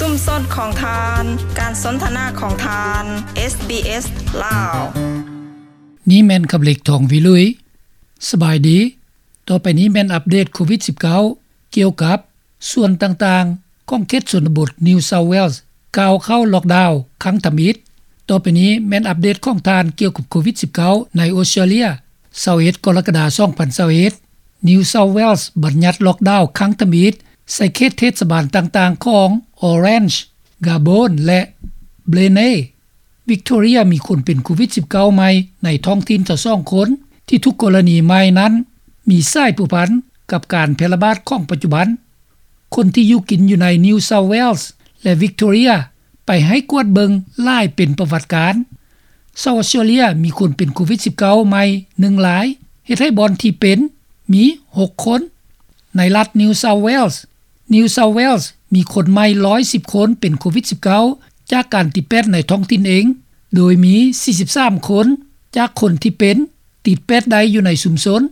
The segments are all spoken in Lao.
ຊຸມຊົນຂອງທ່ານ, ການສົນທະນາຂອງທ່ານ ເອສບີເອສ ລາວ. ນີ້ແມ່ນຄຳເລັກ ທອງວິລຸຍ. ສະບາຍດີ. ຕໍ່ໄປນີ້ແມ່ນອັບເດດໂຄວິດສິບເກົ້າ ກ່ຽວກັບສ່ວນຕ່າງໆຂອງເຂດຊົນນະບົດ New South Wales ກ່າວເຂົ້າລັອກດາວຄັ້ງທຳອິດ. ຕໍ່ໄປນີ້ແມ່ນອັບເດດຂອງທ່ານກ່ຽວກັບໂຄວິດສິບເກົ້າ ໃນອົດສະຕຣາເລຍ. ຊາວເອັດ ກໍລະກະດາ ສອງພັນຊາວເອັດ New South Wales ບັນຍັດລັອກດາວຄັ້ງທຳອິດໃສ່ເຂດເທດສະບານຕ່າງໆຂອງ Orange, Garbonne ແລະ Blenheim. Victoria ມີຄົນເປັນໂຄວິດສິບເກົ້າໃໝ່ໃນທ້ອງຖິ່ນຊາວສອງຄົນ ທີ່ທຸກກໍລະນີໃໝ່ນັ້ນມີສາຍພົວພັນກັບການແຜ່ລະບາດຂອງປັດຈຸບັນ. ຄົນທີ່ຢູ່ກິນຢູ່ໃນ New South Wales ແລະ Victoria ໄປໃຫ້ກວດເບິ່ງຫຼາຍເປັນປະຫວັດການ. ຊາວອົດສະຕຣາເລຍມີຄົນເປັນໂຄວິດສິບເກົ້າໃໝ່ໜຶ່ງລາຍ, ເຮັດໃຫ້ບ່ອນທີ່ເປັນມີຫົກຄົນ. ໃນລັດ New South Wales, New South Wales ມີຄົນໃໝ່ຮ້ອຍສິບຄົນເປັນໂຄວິດສິບເກົ້າ ຈາກການຕິດແປດໃນທ້ອງຖິ່ນເອງ, ໂດຍມີສີ່ສິບສາມຄົນຈາກຄົນທີ່ເປັນ ຕິດແປດໄດ້ຢູ່ໃນຊຸມຊົນ.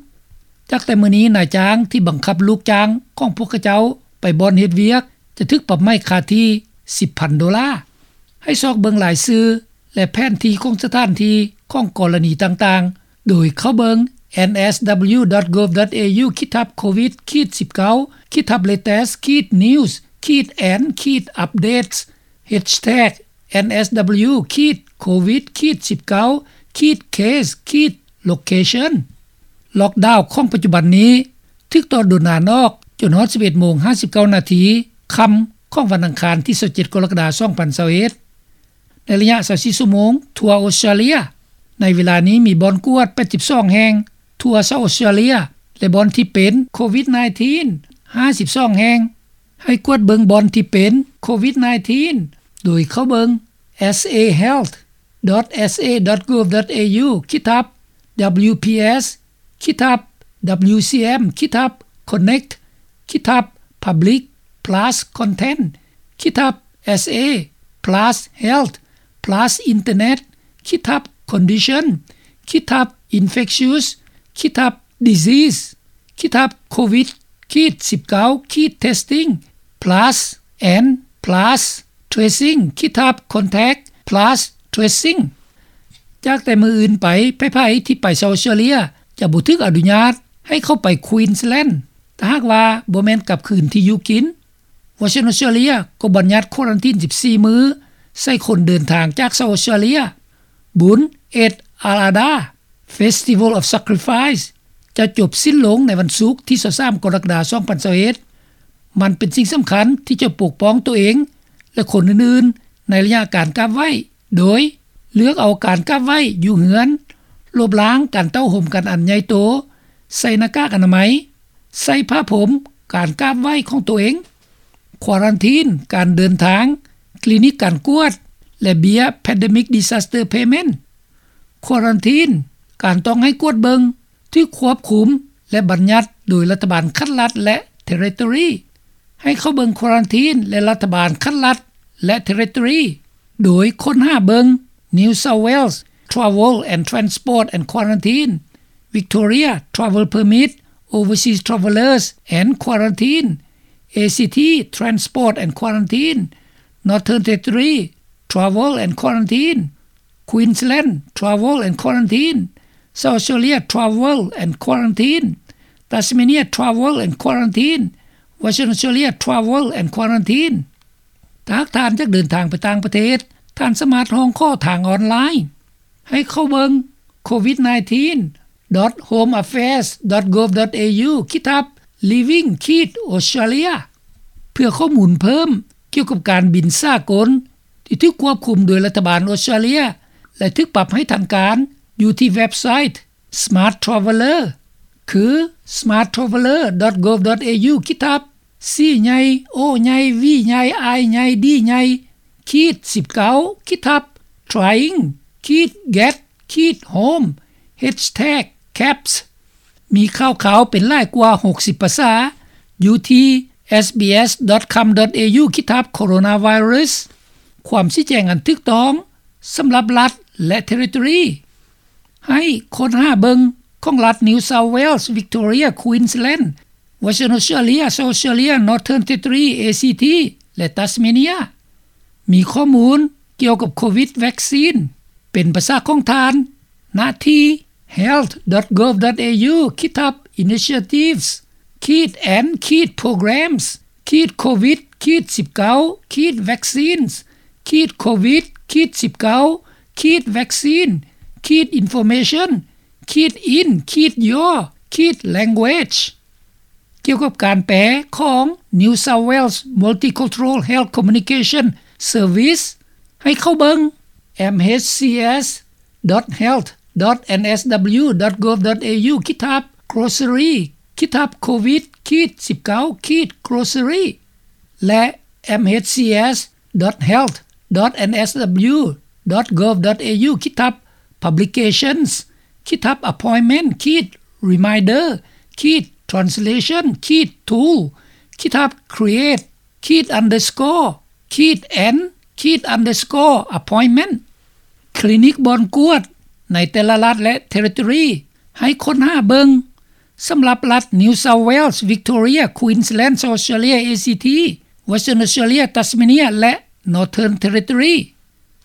ຈາກແຕ່ມື້ນີ້ນາຍຈ້າງທີ່ບັງຄັບລູກຈ້າງຂອງພວກເຂົາເຈົ້າໄປບ່ອນເຮັດວຽກ ຈະຖືກປັບໃໝຄ່າທີ່ສິບພັນໂດລາ. ໃຫ້ຊອກເບິ່ງລາຍຊື່ ແລະ ແຜນທີ່ຂອງສະຖານທີ່ຂອງກໍລະນີຕ່າງໆ ໂດຍເຂົ້າເບິ່ງ NSW.gov.au ຂີດທັບ COVID ຂີດ 19 ຂີດທັບ latest ຂີດ news ຂີດ and ຂີດ updates ແຮັດແທັກ NSW ຂີດ COVID ຂີດ 19 ຂີດ case ຂີດ location. ລັອກດາວຂອງປັດຈຸບັນນີ້ຖືກຕໍ່ດົນນານອອກຈົນຮອດສິບເອັດໂມງຫ້າສິບເກົ້ານາທີຄ່ຳຂອງວັນອັງຄານທີຊາວເຈັດ ກໍລະກະດາ ສອງພັນຊາວເອັດ. ໃນໄລຍະຊາວສີ່ຊົ່ວໂມງທົ່ວອົດສະຕຣາເລຍ, ໃນເວລານີ້ມີບ່ອນກວດແປດສິບສອງແຫ່ງທົ່ວຊາວອົດສະຕຣາເລຍ ແລະ ບ່ອນທີ່ເປັນໂຄວິດສິບເກົ້າຫ້າສິບສອງແຫ່ງ. ໃຫ້ກວດເບິ່ງບ່ອນທີ່ເປັນໂຄວິດສິບເກົ້າ ໂດຍເຂົ້າເບິ່ງ sahealth.sa.gov.au ຂີດທັບ WPS ຂີດທັບ WCM ຂີດທັບ connect ຂີດທັບ public plus content ຂີດທັບ SA plus health plus internet ຂີດທັບ condition ຂີດທັບ infectious ຂີດທັບ disease ຂີດທັບ COVID ຂີດ 19 ຂີດ testing plus and plus tracing ຂີດທັບ contact plus tracing. ຈາກແຕ່ມື້ອື່ນໄປ, ໃຜໆທີ່ໄປຊາວອົດສະຕຣາເລຍຈະບໍ່ຖືກອະນຸຍາດໃຫ້ເຂົ້າໄປ Queensland ຖ້າຫາກວ່າບໍ່ແມ່ນກັບຄືນທີ່ຢູ່ກິນ. Western Australia ກໍບັນຍັດຄວາຣັນທີນສິບສີ່ມື້ໃສ່ຄົນເດີນທາງຈາກຊາວອົດສະຕຣາເລຍ. ບຸນ Eid al-Adha Festival of Sacrifice ຈະຈົບສິ້ນລົງໃນວັນສຸກທີຊາວສາມ ກໍລະກະດາ ສອງພັນຊາວເອັດ. ມັນເປັນສິ່ງສຳຄັນທີ່ຈະປົກປ້ອງຕົວເອງ ແລະ ຄົນອື່ນໆໃນໄລຍະການກາບໄຫວ້ ໂດຍເລືອກເອົາການກາບໄຫວ້ຢູ່ເຮືອນ, ລົບລ້າງການເຕົ້າໂຮມກັນອັນໃຫຍ່ໂຕ, ໃສ່ໜ້າກາກອະນາໄມ, ໃສ່ຜ້າພົມການກາບໄຫວ້ຂອງຕົວເອງ, ຄວາຣັນທີນການເດີນທາງ, ຄລີນິກການກວດ ແລະ ເບ້ຍ Pandemic Disaster Payment. ຄວາຣັນທີນການຕ້ອງໃຫ້ກວດເບິ່ງ ຖືກຄວບຄຸມ ແລະ ບັນຍັດໂດຍລັດຖະບານຂັ້ນລັດ ແລະ Territory. ໃຫ້ເຂົ້າເບິ່ງຄວາຣັນທີນ ແລະ ລັດຖະບານຂັ້ນລັດ ແລະ Territory ໂດຍຄົ້ນຫາເບິ່ງ New South Wales Travel and Transport and Quarantine, Victoria Travel Permit, Overseas Travellers and Quarantine, ACT Transport and Quarantine, Northern Territory Travel and Quarantine, Queensland Travel and Quarantine, South Australia Travel and Quarantine, Tasmania Travel and Quarantine, Western Australia Travel and Quarantine. ຖ້າຫາກທ່ານຢາກເດີນທາງໄປຕ່າງປະເທດ, ທ່ານສາມາດຮ້ອງຂໍທາງອອນລາຍ. ໃຫ້ເຂົ້າເບິ່ງ COVID nineteen dot homeaffairs dot gov dot au ຂີດທັບ living ຂີດ Australia ເພື່ອຂໍ້ມູນເພີ່ມກ່ຽວກັບການບິນສາກົນ ທີ່ຖືກຄວບຄຸມໂດຍລັດຖະບານອົດສະຕຣາເລຍ ແລະ ຖືກປັບໃຫ້ທັນການຢູ່ທີ່ເວັບໄຊ Smart Traveller ຄື smart traveller dot gov dot au ຂີດທັບ C ໃຫຍ່ O ໃຫຍ່ V ໃຫຍ່ I ໃຫຍ່ D ໃຫຍ່ ຂີດ ສິບເກົ້າ ຂີດທັບ trying ຂີດ get ຂີດ home ແຮັດແທັກ caps. ມີຂ່າວຄາວເປັນຫຼາຍກວ່າຫົກສິບພາສາ ຢູ່ທີ່ SBS dot com dot au ຂີດທັບ coronavirus ຄວາມຊີ້ແຈງອັນຖືກຕ້ອງສຳລັບລັດ ແລະ Territory. ໃຫ້ຄົ້ນຫາເບິ່ງຂອງລັດ New South Wales, Victoria, Queensland, Western Australia, South Australia, Northern Territory, ACT ແລະ Tasmania. ມີຂໍ້ມູນກ່ຽວກັບໂຄວິດວັກຊີນ ເປັນປະຊາຂອງທ່ານ ນະທີ່ health.gov.au ຂີດທັບ initiatives ຂີດ and ຂີດ programs ຂີດ covid ຂີດ 19 ຂີດ vaccines ຂີດ covid ຂີດ 19 ຂີດ vaccine ຂີດ information ຂີດ in ຂີດ your ຂີດ language ກ່ຽວກັບການແປຂອງ New South Wales Multicultural Health Communication Service ໃຫ້ເຂົ້າເບິ່ງ mhcs.health.nsw.gov.au ຂີດທັບ grocery ຂີດທັບ covid ຂີດ 19 ຂີດ grocery ແລະ mhcs.health.nsw.gov.au ຂີດທັບ publications ຂີດທັບ appointment ຂີດ reminder ຂີດ translation ຂີດ tool ຂີດທັບ create ຂີດ underscore ຂີດ and ຂີດ underscore appointment ຄລີນິກບ່ອນກວດໃນແຕ່ລະລັດ ແລະ ເທຣິທອຣີ ໃຫ້ຄົ້ນຫາເບິ່ງ ສຳລັບລັດ New South Wales, Victoria, Queensland, South Australia, ACT, Western Australia, Tasmania ແລະ Northern Territory.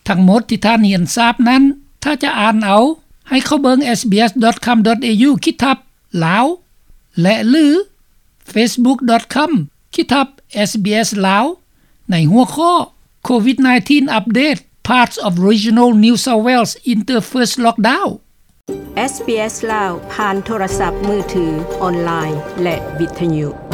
ທັງໝົດທີ່ທ່ານຮຽນຊາບນັ້ນ ຖ້າຈະອ່ານເອົາ ໃຫ້ເຂົ້າເບິ່ງ sbs.com.au ຂີດທັບ Lao ແລະ ຫຼື facebook.com ຂີດທັບ SBS Lao ໃນຫົວຂໍ້ COVID nineteen update, parts of regional New South Wales enter first lockdown. ເອສບີເອສ ລາວ ຜ່ານໂທລະສັບມືຖື, ອອນລາຍ ແລະ ວິທຍຸ.